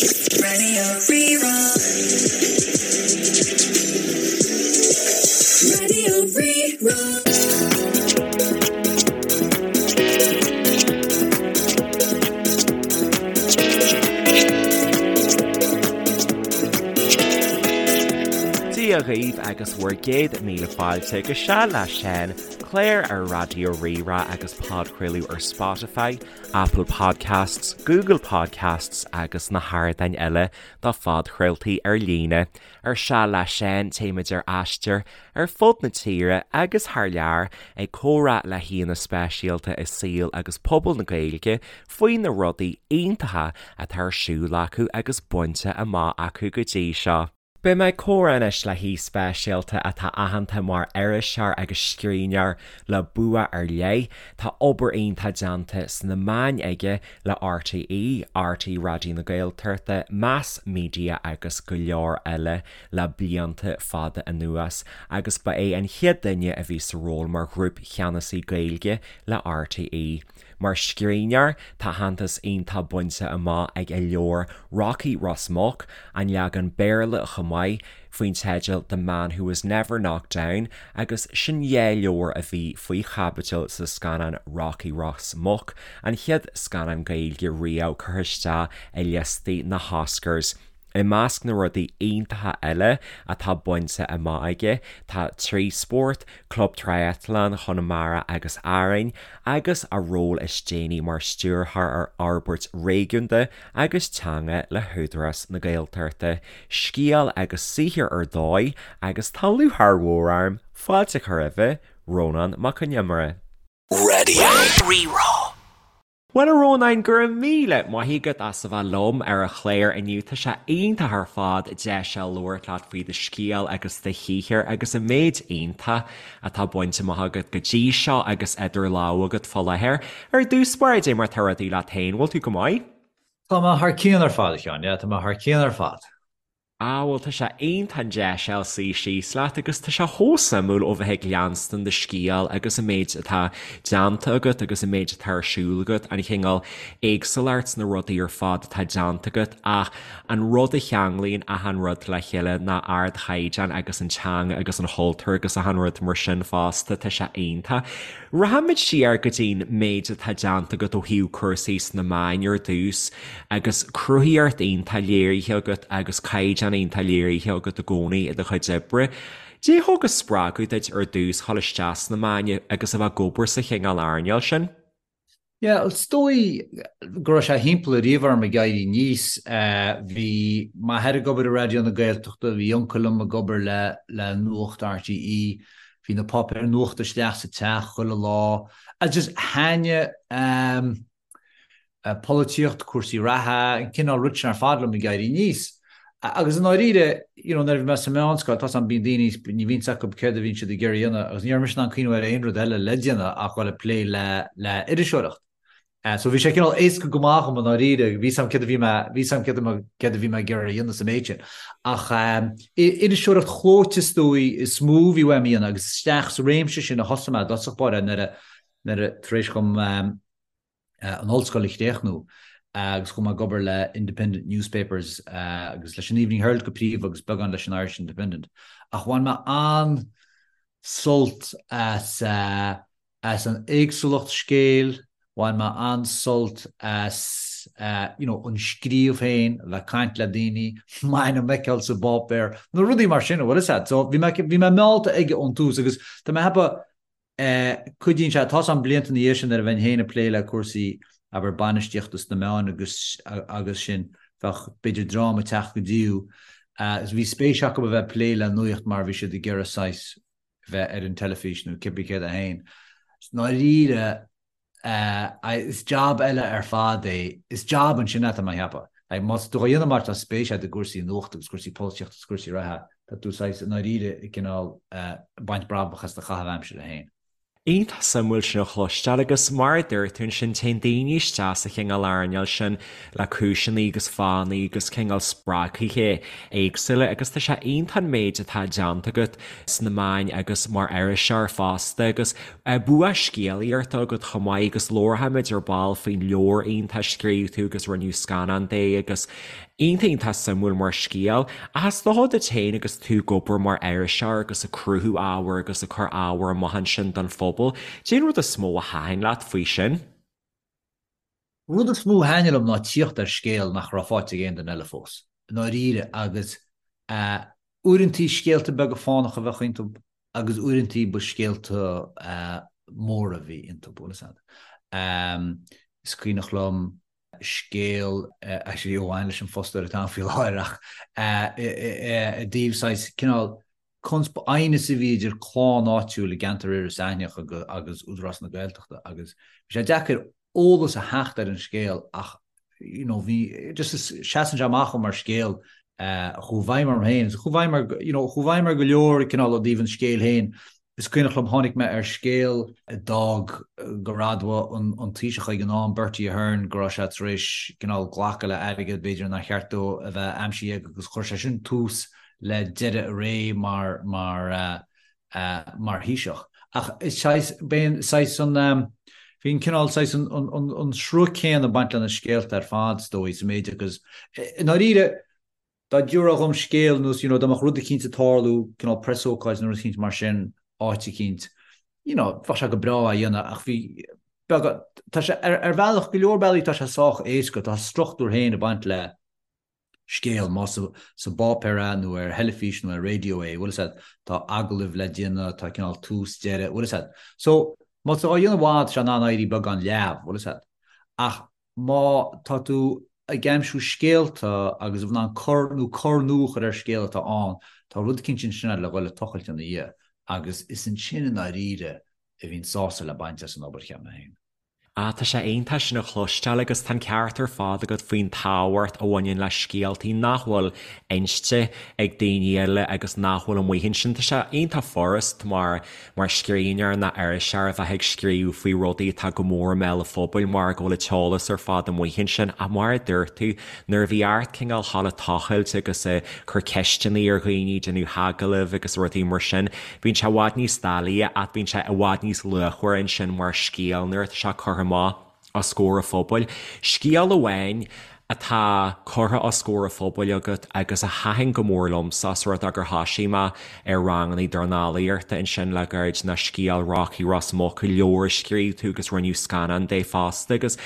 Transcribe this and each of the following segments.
Radio Rí-Rá. Radio Rí-Rá. Dia dhaoibh agus bhur gcéad míle fáilte go Seal le Seán, clár ar Raidió Rí-Rá agus podchraoladh ar Spotify, Apple Podcasts, Google Podcasts agus na hardáin eile do phodchraoltaí ar líne. Ar Seal le Seán téimid ar aistear ar fud na tíre agus thar lear ag comhrá le haíonna speisialta i saol agus pobal na Gaeilge faoi na rudaí iontacha atá ar siúl acu agus bainte amach acu go dtí seo. Beidh mé ag comhrá anois le haoi speisialta atá aitheanta mar iriseoir agus scríbhneoir le bua ar leith. Tá obair iontach déanta sna meáin aige le RTÉ, RTÉ Raidió na Gaeltachta, Meas Media agus go leor eile le blianta fada anuas agus ba é an chéad duine a bhí sa ról mar Ghrúpcheannasaí Gaeilge le RTÉ. Mar scríbhneoir, tá aitheantas iontach bainte amach ag a leabhar Rocky Ros Muc, an leagan Béarla chomh maith, faoin teideal The Man Who Was Never Knocked Down agus sin dhá leabhar a bhí faoi chaibidil sa scannán Rocky Ros Muc, an chéad scannán Gaeilge riamh curtha isteach i liostaí na hOscars. I measc na rudaí iontacha eile atá bainte amach aige tá Trisport, Club Triathlon Chonamara agus Árainn, agus a ról is déanaí mar Stiúrthóir ar Fhorbairt Réigiúnda agus Teanga le hÚdarás na Gaeltachta. Scéal agus saothar ar dóigh agus tá lúcháir mhór orm fáilte a chur roimhe, Rónán Mac Con Iomaire. Radio Rí-Rá. Bhuel a Rónáin, go raibh míle maith agat as a bheith liom ar an chlár inniu. Tá sé iontach ar fad deis a labhairt leat faoi do scéal agus do shaothar agus an méid iontach atá bainte amach agat go dtí seo agus idir lámha agat fá láthair. Ar dtús báire, dé mar tá rudaí leat féin, bhfuil tú go maith? Tá mé thar cionn ar fad, a Sheáin, yeah, tá mé thar cionn ar fad. Ah bhuel tá sé iontach an deis a fháil suí síos leat agus tá sé chomh suimiúil ó bheith ag leanstan do scéal agus an méid atá déanta agat agus an méid atá ar siúl agat, an chineál éagsúlacht sna rudaí ar fad atá déanta agat ach an rud a cheanglaíonn achan rud le chéile ná ardchaighdeán agus an teanga agus an chultúr agus achan rud mar sin fosta, tá sé iontach. Rachaimid siar go dtí'n méid atá déanta agat ó thaobh cúrsaí sna meáin ar dtús agus cruthaíocht iontach léirithe agat agus caighdeán iontach léirithe agat i gcónaí i do chuid oibre. Dé thug an spreagadh duit ar dtús dhul isteach sna meáin agus a bheith ag obair sa chineál earnáil sin? Yeah, is dóigh go raibh sé thimpeall ariamh orm ag éirí aníos. Bhí m'athair ag obair i Raidió na Gaeltachta, bhí uncail liom ag obair le le Nuacht RTÉ, bhí na páipéir nuachta isteach sa teach chuile lá. Agus just thaitnigh polaitíocht, cúrsaí reatha, an cineál rud sin ar fad liom ag éirí aníos. Agus i ndáiríre, you know, nuair a bhí mé sa mheánscoil, tá 's a'm, bíonn daoine, ní bhíonn 's acu céard a bhíonn siad ag iarraidh a dhéanamh agus ní raibh mise in ann cuimhneamh ar aon rud eile le déanamh ach dhul ag plé le, le iriseoireacht. So bhí sé cineál éasca go maith dhom i ndáiríre, bhí 's a'm céard a bhí mé, bhí 's a'm céard a, céard a bhí mé ag iarraidh a dhéanamh sa méid sin. Ach iriseoireacht chlóite is dóigh is mó a bhí uaim a dhéanamh agus isteach sa réimse sin a thosaigh mé i dtosach báire nuair a, nuair a, tar éis dhom, an ollscoil a chríochnú agus chuaigh mé ag obair le Independent Newspapers agus leis an Evening Herald go príomha agus beagán leis an Irish Independent. Ach bhain mé an-sult as as an éagsúlacht scéil, bhain mé an-sult as you know an scríobh féin, a bheith ag caint le daoine, m'ainm a fheiceáil sa bpáipéar, na rudaí mar sin, bhfuil 'fhios a'd. So bhí mé bhí mé meallta aige ón tús agus tá mé ag ceapadh Cuidíonn sé, tá 's a'm blianta ina dhiaidh sin nuair a bheinn féin ag plé le cúrsaí, abair, bainistíochta sna meáin agus agus sin, bheadh b'fhéidir dream ag teacht go dtí thú agus bhí spéis acu a bheith ag plé le nuaíocht mar bhí siad ag iarraidh saghas bheith ar an teilifís nó cibé céard é féin. I ndáiríre, Is jab eile ar fad é. Is jab ansin é, tá mé a cheapadh. Like, má tá tú á dhéanamh mar tá spéis agat i gcúrsaí nuachta agus cúrsaí polaitíochta agus cúrsaí reatha, tá tú saghas i ndáiríre ag cineál baint brabach as do chaitheamh aimsire féin. Iontach suimiúil sin a chloisteáil agus mar a dúirt tú ansin téann daoine isteach sa chineál earnáil sin le cúiseanna agus fáthanna agus cineál spreagthaithe éagsúla agus tá sé iontach an méid atá déanta agat sna meáin agus mar iriseoir fosta agus Bua scéalaíochta agat chomh maith agus labharfaimid ar ball faoin leabhar iontach a scríobh tú agus rinneadh scannán de agus. Iontach iontach suimiúil mar scéal. Ach is dócha duit féin agus tú ag obair mar iriseoir agus ag cruthú ábhair agus ag cur ábhair amach ansin don phobal, cén rud is mó a thaitin leat faoi sin? Rud is mó a thaitnigh liom ná tíocht ar scéal nach raibh faighte ag aon duine eile fós, i ndáiríre, agus uaireantaí scéalta beaga fánacha a bheadh iontu agus uaireantaí ba scéalta móra a bhí iontu, bhfuil fhios a'd. Is cuimhneach liom scéal, actually a bhain leis an fostóir atá ann faoi láthair ach i dtaobh saghas cineál consp aighneas a bhí idir clann áitiúil i gceantar Iorras Aithneach agus Údarás na Gaeltachta agus bhí sé deacair eolas a theacht ar an scéal ach you know bhí just seasann sé amach mar scéal a chuaigh i bhfeidhm orm féin agus a chuaigh i bhfeidhm ar you know chuaigh i bhfeidhm ar go leor cineál ó dtaobh an scéil féin Is cuimhneach liom tháinig mé ar scéal a d'fhág gur admhaigh an Taoiseach ag an am, Bertie Ahern, go raibh sé tar éis cineál glacadh le airgead b'fhéidir nár cheart dó a bheith aimsithe aige agus chuir sé sin tús le deireadh a ré mar mar mar Thaoiseach. Ach is saghas, b'é an saghas an bhí an cineál saghas an an an sruth céanna ag baint le na scéalta ar fad is dóigh sa méid agus i ndáiríre Dá dtabharfá dhom scéal nós you know dá mbeadh rud eicínt ag tarlú, cineál preasócáid nó rud eicínt mar sin, áit eicínt, you know, bheadh sé go breá á dhéanamh ach bhí, beagán, tá sé, ar, ar bhealach, go leor bealaí tá sé sách éasca, tá a struchtúr féin ag baint le scéal, más sa, sa bpáipéar é nó ar theilifís nó ar raidió é, bhfuil fhios a'd, tá agallaimh le déanamh, tá cineál tús, deireadh, bhfuil fhios a'd. So, má tá á dhéanamh i bhfad, tá sé in ann éirí beagán leamh, bhfuil fhios a'd. Ach má tá tú ag aimsiú scéalta agus in ann cor nó cor nua a chur ar scéal atá ann, tá rud eicínt ansin le dhul ag tochailt ina dhiaidh agus is ansin i ndáiríre a bhíonn sásamh le baint as an obair, cheap mé féin. Ah, tá sé iontach sin a chloisteáil agus tá an ceart ar fad agat faoin tábhacht a bhaineann le scéaltaí nach bhfuil inste ag daoine eile agus nach bhfuil amuigh ansin. Tá sé iontach furast mar mar scríbhneoir nó iriseoir a bheith ag scríobh faoi rudaí atá go mór i mbéal an phobail mar go bhfuil an t-eolas ar fad amuigh ansin ach mar a dúirt tú, nuair a bhí ort cineál a ghabháil ag tochailt agus ag cur ceisteanna ar dhaoine, déanamh agallaimh agus rudaí mar sin, bíonn sé i bhfad níos doiligh ach bíonn sé i bhfad níos luachmhaire ansin mar scéal nuair atá sé curtha amach. os comhair an phobail. Scéal amháin atá curtha os comhair an phobail agat agus a thaitin go mór liomsa os rud é gur thoisigh mé ar ranganna dornálaíochta ansin le gairid ná scéal Rocky Ros Muc, leabhar a scríobh tú agus rinneadh scannán de fosta agus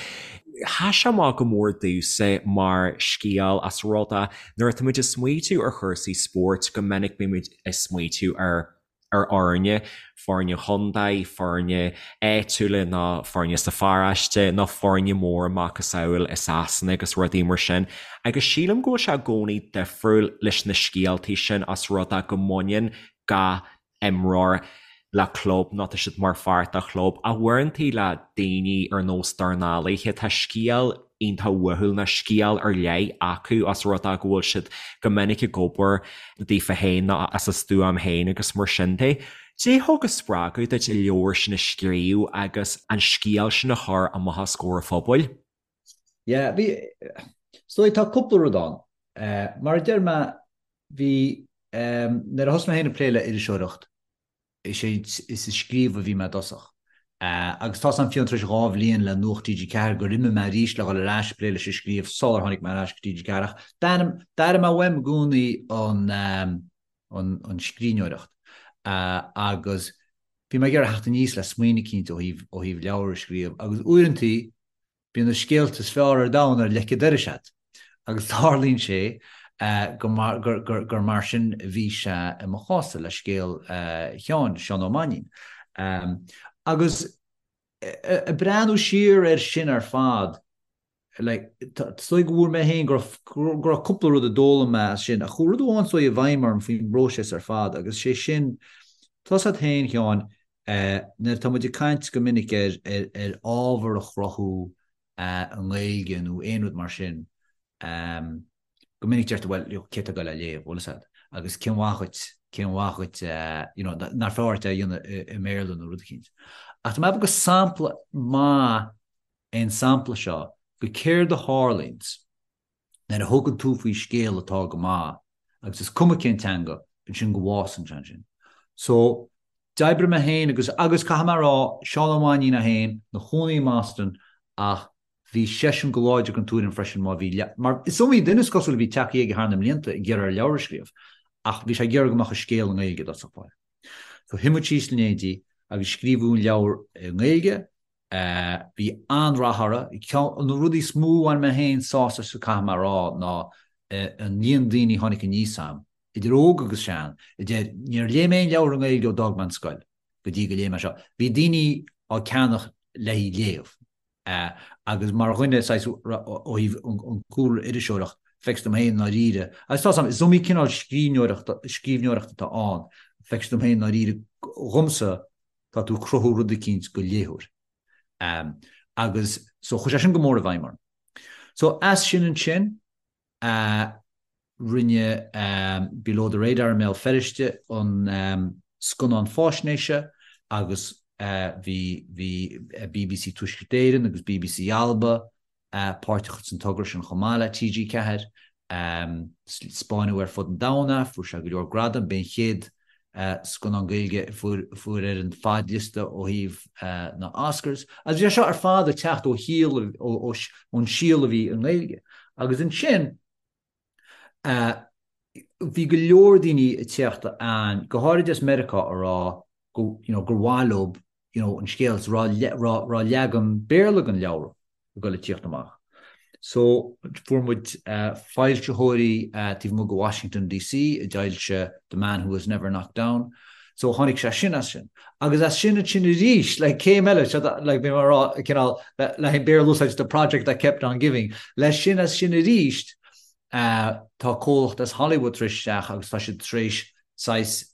sheas sé amach go mór domhsa mar scéal os rud é nuair atá muid ag smaoitiú ar chúrsaí spóirt go minic bímid ag smaoitiú ar ar fhoirne, foirne chontae, foirne áitiúla nó foirne sa pharóiste nó foirne móra macasamhail i Sasana agus rudaí mar sin. Agus sílim go bhfuil sé i gcónaí difriúil leis na scéaltaí sin os rud é go mbaineann gach imreoir le club nó tá siad mar pháirt de chlub. Ach uaireantaí le daoine ar nós dornálaithe tá scéal iontach uathúil nó scéal ar leith acu os rud é go bhfuil siad go minic ag obair daofa féin nó as a stuaim féin agus mar sin de. Cad é thug an spreagadh duit an leabhar sin a scríobh agus an scéal sin a chur amach os comhair an phobail? Yeah, bhí, is dóigh tá cúpla rud ann. Mar a deir mé, bhí, nuair a thosaigh mé féin ag plé le iriseoireacht, Is é is ag scríobh a bhí mé i dtosach. Agus tá's a'm fiú tar éis 2 bhliain le Nuacht TG4 gur imigh mé arís le dhul ar ais ag plé leis an scríobh sular tháinig mé ar ais go TG4 ach d'airigh mé uaim i gcónaí an an scríbhneoireacht agus bhí mé ag iarraidh theacht aníos le smaoineamh eicínt ó thaobh ó thaobh leabhar a scríobh agus uaireantaí Bíonn na scéalta is fearr ar domhan ar leic an dorais agat. Agus tarlaíonn sé gur mar sin a bhí sé i mo chás-sa le scéal Sheáin, Seán Ó Mainnín. Agus ag breathnú siar air sin ar fad, like, is dóigh go bhfuair mé féin go raibh cúpla rud a d'fhoghlaim mé as sin, ach chuaigh rud amháin is dóigh i bhfeidhm orm faoin bpróiseas ar fad agus sé sin, tá's agat féin, Sheáin, Nuair atá muid ag caint go minic ar ar ábhar a chruthú i nGaeilge nó aon rud mar sin, go minic deirtear bhuel, cé atá ag dul é a léamh, bhfuil fhios agat? Agus cén mhaith dhuit, cén mhaith dhuit, you know, nár fearr duit é a dhéanamh i mBéarla nó rud eicínt. Ach tá mé ag ceapadh gur sampla maith é an sampla seo go céard a tharlaíonns nuair a thugann tú faoi scéal atá go maith, agus is cuma cén teanga, ansin go bhfásann sé ansin. So, d'oibrigh mé féin agus, agus caithfidh mé a rá, Seán Ó Mainnín é féin, ina chónaí i mBoston, ach Bhí seisean go láidir den tuairim freisin má bhí, mar is iomaí duine is cosúil a bhí tagtha aige thar na mblianta ag iarraidh air leabhar a scríobh, ach bhí sé ag iarraidh go mbeadh a scéal i nGaeilge i dtosach báire. So shuigh muid síos in éindí agus scríobhadh an leabhar i nGaeilge, bhí an-rath orthu. Ceann de na rudaí is mó a bhain mé féin sásamh as caithfidh mé a rá ná an líon daoine a tháinig aníos agam, idir óg agus sean, a deir níor léigh mé aon leabhar i nGaeilge ó d'fhág mé an scoil go dtí go léigh mé seo. Bhí daoine á ceannach le haghaidh léamh. Agus mar dhuine, saghas, ó thaobh an cúlra iriseoireacht, feictear dom féin i ndáiríre, agus tá 's a'm, is iomaí cineál scríbhneoireachta, scríbhneoireacht atá ann, feictear dom féin i ndáiríre, dhomsa, tá tú ag cruthú rud eicínt go léitheoir. Agus, so, chuir sé sin go mór i bhfeidhm orm. So, as sin ansin, a rinne Below the Radar i mBéal Feirste an scannán fáisnéise agus bhí bhí BBC Tuaisceart Éireann agus BBC Alba páirteach san togra sin chomh maith le TG4. Spáineadh ar fud an domhain é, fuair sé go leor gradam, b'é an chéad scannán Gaeilge a fuair ar an fadliosta ó thaobh na Oscars. Agus bhí sé seo ar fad ag teacht ó shíol, ón síol a bhí i nGaeilge. Agus ansin bhí go leor daoine ag teacht ann, go háirid as Meiriceá, a rá go, you know, gur mhaith leo, you know, an scéal, is raibh leagan Béarla den leabhar ag dul ag tíocht amach. So, fuair muid foilsitheoirí taobh amuigh de Washington DC a d'fhoilsigh The Man Who Was Never Knocked Down. So, tháinig sé sin as sin. Agus as sin ansin arís, like, céim eile, seo, like, bhí mé ag rá, cineál, le haghaidh Béarla a úsáid, the project that kept on giving. Leis sin as sin arís, tá comhlacht as Hollywood tar éis isteach agus tá siad tar éis saghas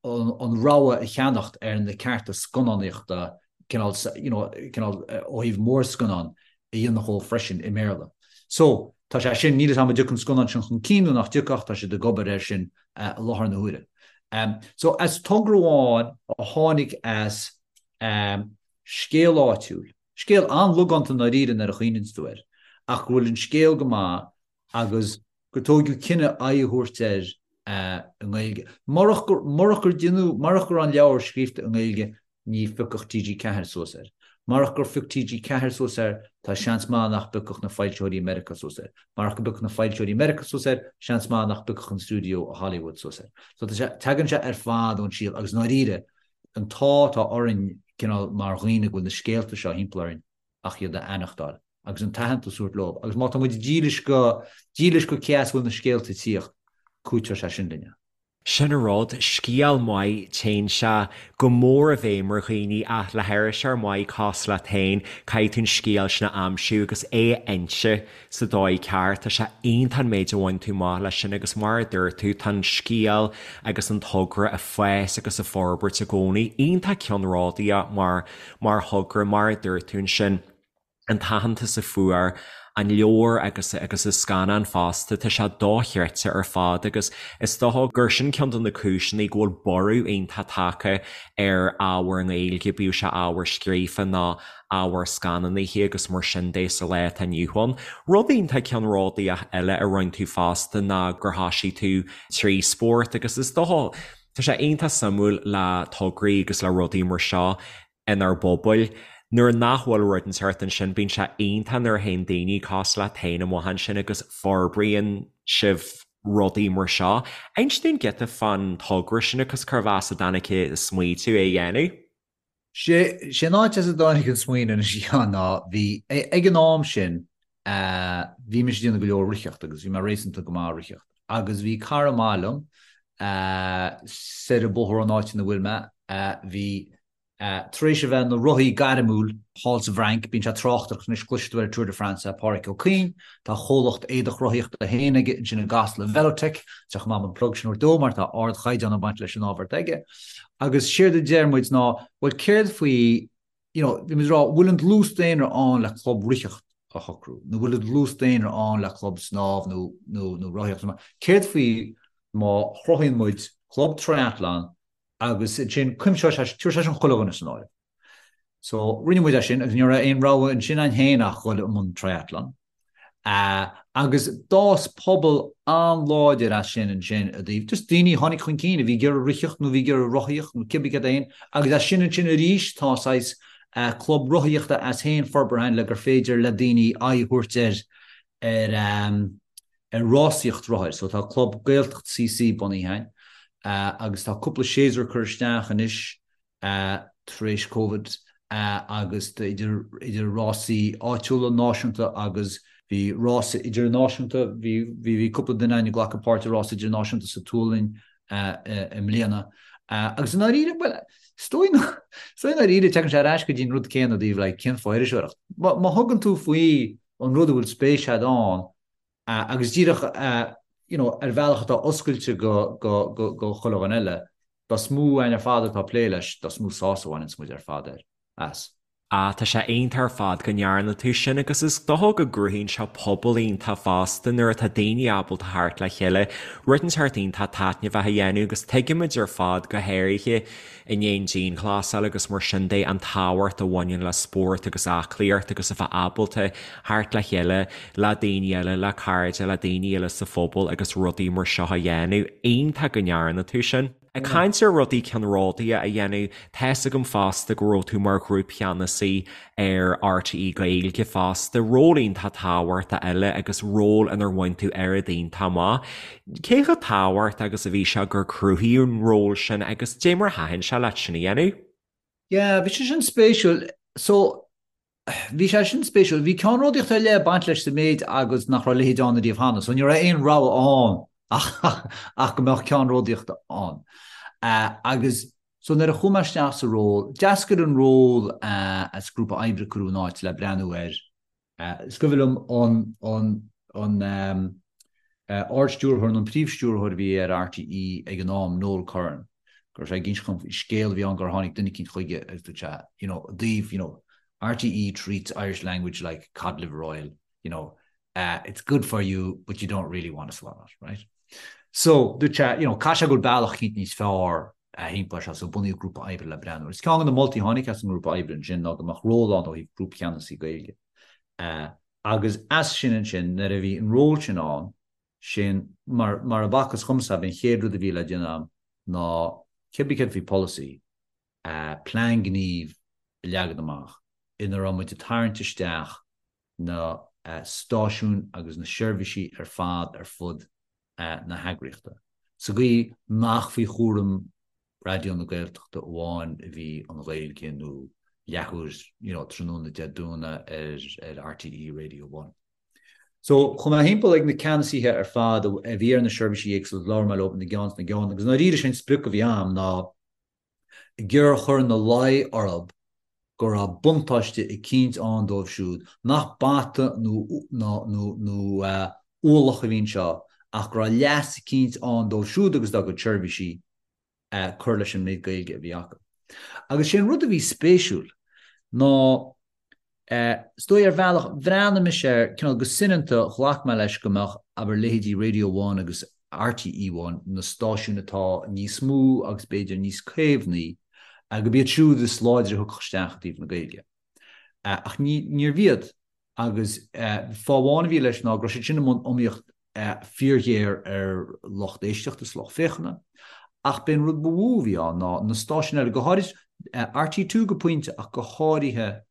an rogha a cheannacht ar na cearta scannánaíochta cineál, you know, cineál ó thaobh mórscannán a dhéanamh dhó freisin i mBéarla. So, tá sé sin, níl a fhios agam an dtiocfaidh an scannán sin chun cinn nó nach dtiocfaidh ach tá siad ag obair air sin i láthair na huaire. So, as togra amháin a tháinig as scéal áitiúil, scéal an-logánta i ndáiríre nuair a chuimhníonns tú air, ach go bhfuil an scéal go maith agus gur tóigeadh cinneadh aghaidh a thabhairt air i nGaeilge. Murach gur, murach gur deineadh, murach go raibh an leabhar scríofa i nGaeilge ní phiocfadh TG4 suas air. Murach gur phioc TG4 suas air tá seans maith nach bpiocfadh na foilsitheoirí i Meiriceá suas air. Murach go bpiocfadh na foilsitheoirí i Meiriceá suas air, seans maith nach bpiocfadh an stiúideo i Hollywood suas air. So tá sé, tagann sé ar fad ón síol agus i ndáiríre, an t-ádh atá orainn cineál mar dhaoine go bhfuil na scéalta seo thimpeall orainn ach iad a aithneachtáil agus an t-aitheantas a thabhairt leo agus má tá muid dílis go, dílis go cé as a bhfuil na scéalta ag tíocht, cúiteoidh sé sin linn. Sin an rud, scéal maith, téann sé go mór i bhfeidhm ar dhaoine ach le hiriseoir maith cosúil leat féin, caithfidh tú an scéal sin a aimsiú agus é a inse sa dóigh ceart. Tá sé iontach an méid a bhain tú amach leis sin agus mar a dúirt tú, tá an scéal agus an togra ag fás agus ag forbairt i gcónaí. Iontach ceannródaíoch mar Mar thogra, mar a dúirt tú ansin, an t-aitheantas a fuair an leabhar agus agus an scannán fosta, tá sé dochreidte ar fad agus is dócha gur sin ceann de na cúiseanna go bhfuil borradh iontach tagtha ar ábhar i nGaeilge, bíodh sé ábhar scríofa nó ábhar scannánaithe agus mar sin de sa lá atá inniu ann. Rud iontach ceannródaíoch eile a rinne tú fosta ná gur thosaigh tú trí spórt agus is dócha, Tá sé iontach suimiúil le tograí agus le rudaí mar seo inár bpobail. Nuair nach bhfuil rud inteacht ansin, bíonn sé iontach nuair a théann daoine cosúil leat féin amach ansin agus forbraíonn sibh rudaí mar seo. Inis dúinn giota fán togra sin agus cérbh as a dtáinig an smaoitiú é a dhéanamh. Sé an áit as a dtáinig an smaoineamh anois a Sheáin ná bhí, ag an am sin, bhí mise ag déanamh go leor ritheacht agus bhí mé réasúnta go maith ag ritheacht agus bhí cara maith liom soir an bóthar ón áit ina bhfuil mé, bhí tar éis a bheith ina rothaí gairmiúil thall sa bhFrainc, bíonn sé ag tráchtaireacht anois, cloisfidh tú ar Tour de France é, Páraic Ó Cuinn, tá a chomhlacht éadach rothaíochta féin aige ansin i gCasla, Velotech, tá sé chomh maith an plug sin a thabhairt dó mar tá ardchaighdeán ag baint leis an ábhar atá aige. Agus séard a deir muid ná, bhuel céard faoi, you know, bhí muid ag rá, bhfuil an dlús daonra ann le club ritheacht a shocrú, nó bhfuil an dlús daonra ann le club snámh nó, nó, nó rothaíocht, céard faoi má chruthaíonn muid club triathlon agus ansin cuimseoidh sé, tabharfaidh sé sin chuile dhuine san áireamh. So rinne muid é sin agus ní raibh aon rogha ansin againn féin ach dhul i mbun triathlon. Agus d'fhás pobal an-láidir as sin ansin i dtaobh just daoine a tháinig chun cinn a bhí ag iarraidh ritheacht nó a bhí ag iarraidh rothaíocht nó cibé céard é féin agus as sin ansin arís tá saghas. Club rothaíochta as féin forbartha againn le gur féidir le daoine aghaidh a thabhairt ar ar ar rásaíocht rothair. So tá Club Gaeltacht CC bunaithe againn agus tá cúpla séasúr curtha isteach anois tar éis Covid agus idir idir rásaí áitiúla, náisiúnta agus bhí rása idirnáisiúnta, bhí bhí cúpla duine againn ag glacadh páirt i rása idirnáisiúnta sa tSualainn i mbliana. Agus i ndáiríre, bhuel, is dóigh is dóigh i ndáiríre tagann sé ar ais go dtí an rud céanna i dtaobh like cén fáth iriseoireacht. Má thugann tú faoi an rud a bhfuil spéis agat ann, Agus díreach you know ar bhealach atá oscailte go go go go chuile dhuine eile, dá is mó againn ar fad atá ag plé leis, dá is mó sásamh a bhaineanns muid ar fad air, as. Ah, tá sé iontach ar fad go ndearna tú sin agus is dócha go gcruthaíonn sé pobal iontach fosta nuair atá daoine ábalta theacht le chéile, rud inteacht iontach taitneamhach a dhéanamh agus tuigimid ar fad go háirithe i ndiaidh an dianghlasáil agus mar sin de, an tábhacht a bhaineann le spórt agus aclaíocht agus a bheith ábalta theacht le chéile le daoine eile, le cairde, le daoine eile sa phobal agus rudaí mar seo a dhéanamh. Iontach go ndearna tú sin. Ag caint ar rudaí ceannródaíocha a dhéanamh, tá's agam fosta go raibh tú mar ghrúpcheannasaí ar RTÉ Gaeilge fosta, ról iontach tábhachtach eile agus ról inar bhain tú oiread iontach amach. Cé chomh tábhachtach agus a bhí sé gur cruthaíodh an ról sin agus dé mar a thaitin sé leat sin a dhéanamh? Yeah, bhí sé sin spéisiúil. So, bhí sé sin spéisiúil. Bhí ceannródaíocht ar leith ag baint leis sa méid agus nach raibh a leithéid ann ariamh cheana, so ní raibh aon rogha ann ach go mbeadh ceannródaíocht ann. Agus So nuair a chuaigh mé isteach sa ról, d'eascair an ról as grúpa oibre a cuireadh in áit le breathnú air. Is cuimhin liom an an Ard-Stiúrthóir nó an Príomh-Stiúrthóir a bhí ar RTÉ ag an am, Noel Curran, go raibh sé ag inse dhom faoi scéal a bhí ann gur tháinig duine eicínt chuige agus dúirt sé, you know, i dtaobh, you know, RTÉ treats Irish language like cod liver oil, you know, it's good for you but you don't really want to swallow it, right? So, dúirt sé, you know, caithfidh sé go bhfuil bealach eicínt níos fearr thimpeall air seo, so bunaíodh grúpa oibre le breathnú air. Is ceann de na moltaí a tháinig as an ngrúpa oibre ansin ná go mbeadh ról ann ó thaobh grúpcheannasaí Gaeilge. Agus as sin ansin, nuair a bhí an ról sin ann, sin, mar, mar a b'fhacthas dhomsa, b'é an chéad rud a bhí le déanamh agam ná cibé céard faoi polasaí, plean gnímh a leagan amach ina raibh muid ag tarraingt isteach na stáisiúin agus na seirbhísí ar fad ar fud na heagraíochta, sa gcaoi nach faoi chúram Raidió na Gaeltachta amháin a bhí an Ghaeilge nó leathuair you know tráthnóna Dé Domhnaigh ar RTÉ Radio One. So chuaigh mé thimpeall ag na ceannasaithe ar fad a bhí ar na seirbhísí éagsúla, labhair mé leo ina gceann is ina gceann agus i ndáiríre sé'n sprioc a bhí a'm ná ag iarraidh a chur ina luí orthu go raibh buntáiste eicínt ann dóibh siúd, nach bata nó ualach a bhí anseo ach go raibh leas eicínt ann dóibh siúd agus dá gcuid seirbhísí cur leis an méid Gaeilge a bhí acu. Agus sé an rud a bhí spéisiúil ná Is dóigh ar bhealach, bhreathnaigh mise air, cineál go soineanta, ghlac mé leis go mbeadh, abair, leithéidí Radio One agus RTÉ One, na stáisiúin atá níos mó agus b'fhéidir níos caomhnaí, gurb iad siúd is láidre a thiocfadh isteach i dtaobh na Gaeilge. Ach níorbh iad, agus fáth amháin a bhí leis ná go raibh siad sin i mbun iomaíocht fíorghéar ar lucht éisteachta is lucht féachana. Ach b'é an rud ba mhó a bhí ann ná na stáisiúin eile, go háirid RTÉ Two go pointe ach go háirithe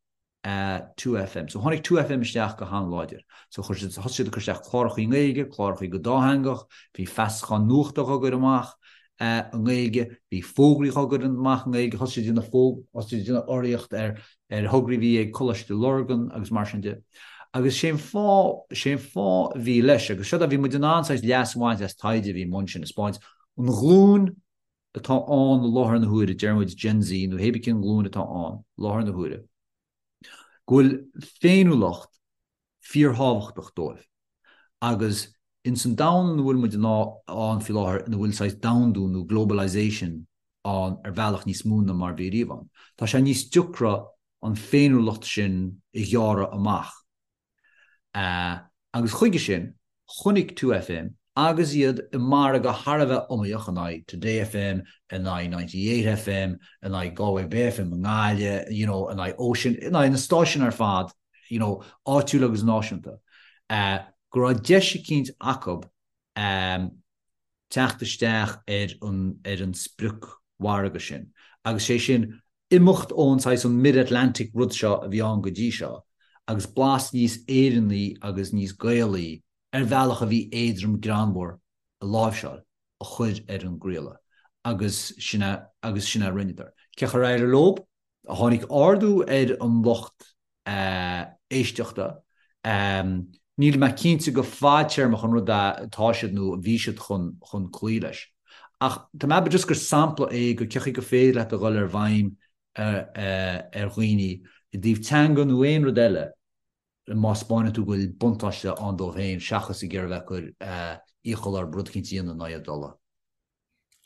2FM. So tháinig 2FM isteach go han-láidir. So chuir siad, thosaigh siad ag cur isteach clárachaí i nGaeilge, clárachaí go dátheangach, bhí feasacháin nuachta á gcur amach i nGaeilge, bhí fógraí á gcur amach i nGaeilge, thosaigh siad ag déanamh fóg, thosaigh siad ag déanamh urraíocht ar ar thograí a bhí ag Coláiste Lurgan agus mar sin de. Agus sé an fáth, sé an fáth a bhí leis, agus seo bhí muid in ann saghas leas a bhaint as taighde a bhí i mbun sin, a 'spáint an ghlúin atá ann i láthair na huaire, deir muid Gen Z nó hébí cén ghlúin atá ann i láthair na huaire, go bhfuil féiniúlacht fíorthábhachtach dóibh. Agus ins an domhan ina bhfuil muid ann faoi láthair, ina bhfuil saghas domhandú nó globalisation ann ar bhealach níos mó ná mar bhí riamh ann, tá sé níos deacra an féiniúlacht sin a ghearradh amach. Agus chuige sin, chonaic 2FM, agus iad i margadh thar a bheith iomaíoch in aghaidh Today FM, in aghaidh 98FM, in aghaidh Galway Bay FM i nGaillimh, you know, in aghaidh Ocean, in aghaidh na stáisiún ar fad, you know, áitiúil agus náisiúnta, go raibh deis eicínt acu teacht isteach ar an ar an spriocmhargadh sin. Agus sé sin. Imeacht ón saghas an mid-Atlantic rud seo a bhí ann go dtí seo agus blas níos Éireannaí agus níos Gaelaí ar bhealach a bhí éadrom greannmhar a láimhseáil a chur ar an gcraoladh agus sin a agus sin a rinneadar. Cén chaoi ar éirigh leo? Tháinig ardú ar an lucht éisteachta. Níl mé cinnte go fadtéarmach an rud é atá siad nó a bhí siad chun chun cloí leis. Ach tá mé just gur sampla é go cén chaoi gur féidir leat a dhul ar bhfeidhm ar dhaoine i dtaobh teanga nó aon rud eile má 'spáineann tú go bhfuil buntáiste ann dóibh féin seachas ag iarraidh bheith ag cur iachall orthu rud eicínt a dhéanamh ná iad dul.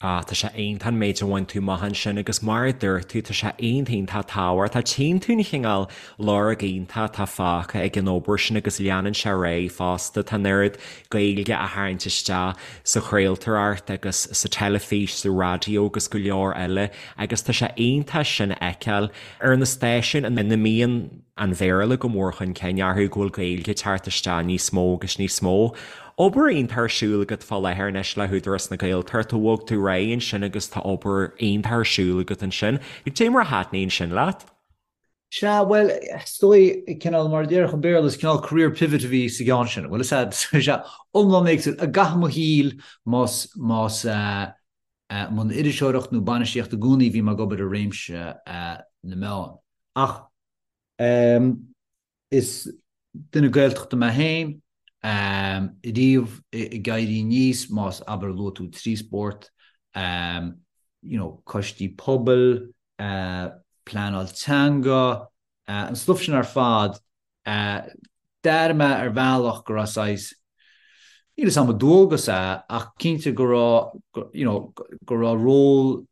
Ah, tá sé iontach an méid a bhain tú amach ansin agus mar a dúirt tú, tá sé iontach iontach tábhachtach. Tchíonn tú an chineál lorg iontach atá fágtha ag an obair sin agus leanann sé ar aghaidh fosta. Tá an oiread Gaeilge á tharraingt isteach sa chraoltóireacht agus sa teilifís, sa raidió agus go leor eile agus tá sé iontach sin a fheiceáil ar na stáisiúin ina mbíonn an Bhéarla go mór chun cinn orthu, go bhfuil Gaeilge ag teacht isteach níos mó agus níos mó. Obair iontach ar siúl agat fá láthair anois le hÚdarás na Gaeltachta, bhog tú ar aghaidh ansin agus tá obair iontach ar siúl agat ansin. Cad é mar a thaitníonn sin leat? Sea, bhuel, is dóigh, cineál, mar a déarfadh an Béarla, is cineál career pivot a bhí sa gceann sin. Bhuel, is ea, is ea, iomlán éagsúil. I gcaitheamh mo shaoil, más, más, mbun iriseoireacht nó bainistíocht i gcónaí bhí mé ag obair i réimse na meán. Ach is duine Gaeltachta mé féin, riamh ag éirí aníos, más abair luaigh tú 3 spórt, you know, coistí pobail, pleanáil teanga, an stuif sin ar fad, D'airigh mé ar bhealach go raibh saghas, níl 'fhios a'm an dualgas é, ach cinnte go raibh, you know, go raibh ról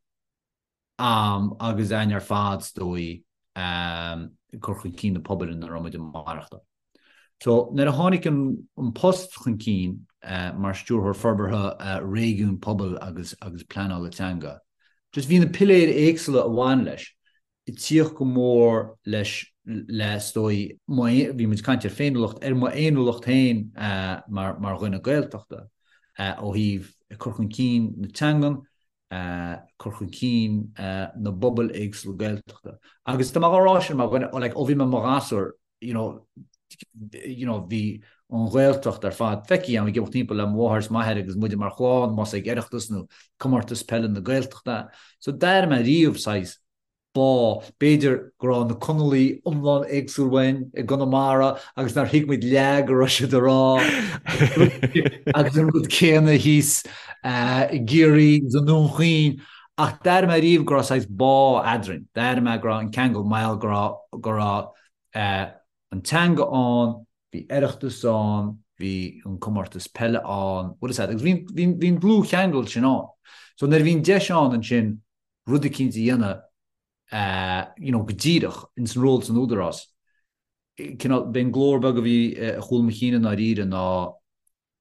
a'm agus a'inn ar fad is dóigh ag cur chun cinn na pobail ina raibh muid ag maireachtáil. So nuair a tháinig an post chun cinn mar Stiúrthóir Forbartha Réigiún Pobail agus agus Pleanála Teanga, just bhí na piléir éagsúla a bhain leis. ag tíocht go mór leis le is dóigh, bhí muid ag caint ar féiniúlacht, ar mo fhéiniúlacht féin mar mar dhuine Gaeltachta ó thaobh cur chun cinn na teangan, cur chun cinn na bpobal éagsúla Gaeltachta. Agus tá mé á rá sin mar dhuine, like, ó bhí mé i mo ghasúr, you know, you know, bhí an Ghaeltacht ar fad feicthe agam ag imeacht timpeall le mo mháthair is m'athair agus muide mar chlann, más ag Oireachtas nó comórtas peile na Gaeltachta. So d'airigh mé riamh saghas bá, b'fhéidir go raibh na Conallaigh iomlán éagsúil uainn i gConamara agus nár thuig muid leath go raibh siad a rá agus an rud céanna thíos i gCiarraí agus i nDún Chaoin ach d'airigh mé riamh go raibh saghas bá eadrainn, d'airigh mé go raibh an ceangal mar go raibh go raibh an teanga ann, bhí Oireachtas ann, bhí an comórtas peile ann, bhfuil 'fhios a'd, agus bhí bhí bhí an dlúthcheangal sin ann. So nuair a bhí an deis ann ansin rud eicínt a dhéanamh you know go díreach ins an ról san Údarás, cineál, b'é an glór beag a bhí i gcúl mo chinn i ndáiríre ná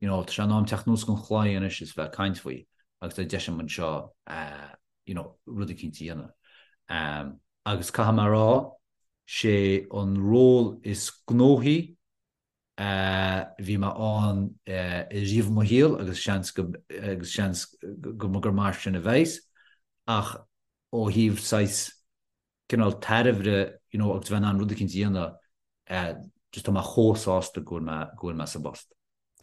you know tá sé in am teacht anuas den chlaí anois is bheith ag caint faoi agus tá deis agam anseo you know rud eicínt a dhéanamh. Agus caithfidh mé a rá, sé an ról is gnóthaí a bhí mé ann riamh i mo shaol agus seans go agus seans go gur mar sin a bheas ach ó thaobh saghas cineál tairbhe you know agus bheith in ann rud eicínt a dhéanamh just tá mé chomh sásta go bhfuil mé go bhfuil mé sa bpost.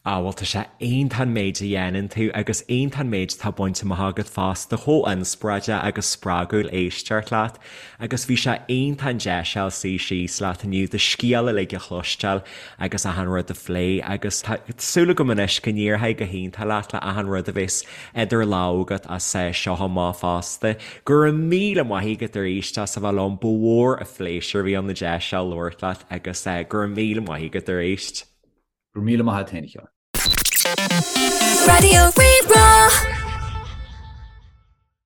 Ah bhuel tá sé iontach an méid a dhéanann tú agus iontach an méid atá bainte amach agat fosta, chomh inspioráideach agus spreagúil éisteacht leat agus bhí sé iontach an deis a fháil suí síos leat inniu do scéal uilig a chloisteáil agus achan rud a phlé agus tá súil agam anois go n-éireoidh go hiontach leat le achan rud a bheas idir lámha agat as seo amach fosta. Go raibh míle maith agat arís as a bheith liom, ba mhór an phléisiúr a bhí ann an deis seo labhairt leat agus go raibh míle maith agat arís. Go raibh míle maith agat féin, a Sheáin. Raidió Rí-Rá.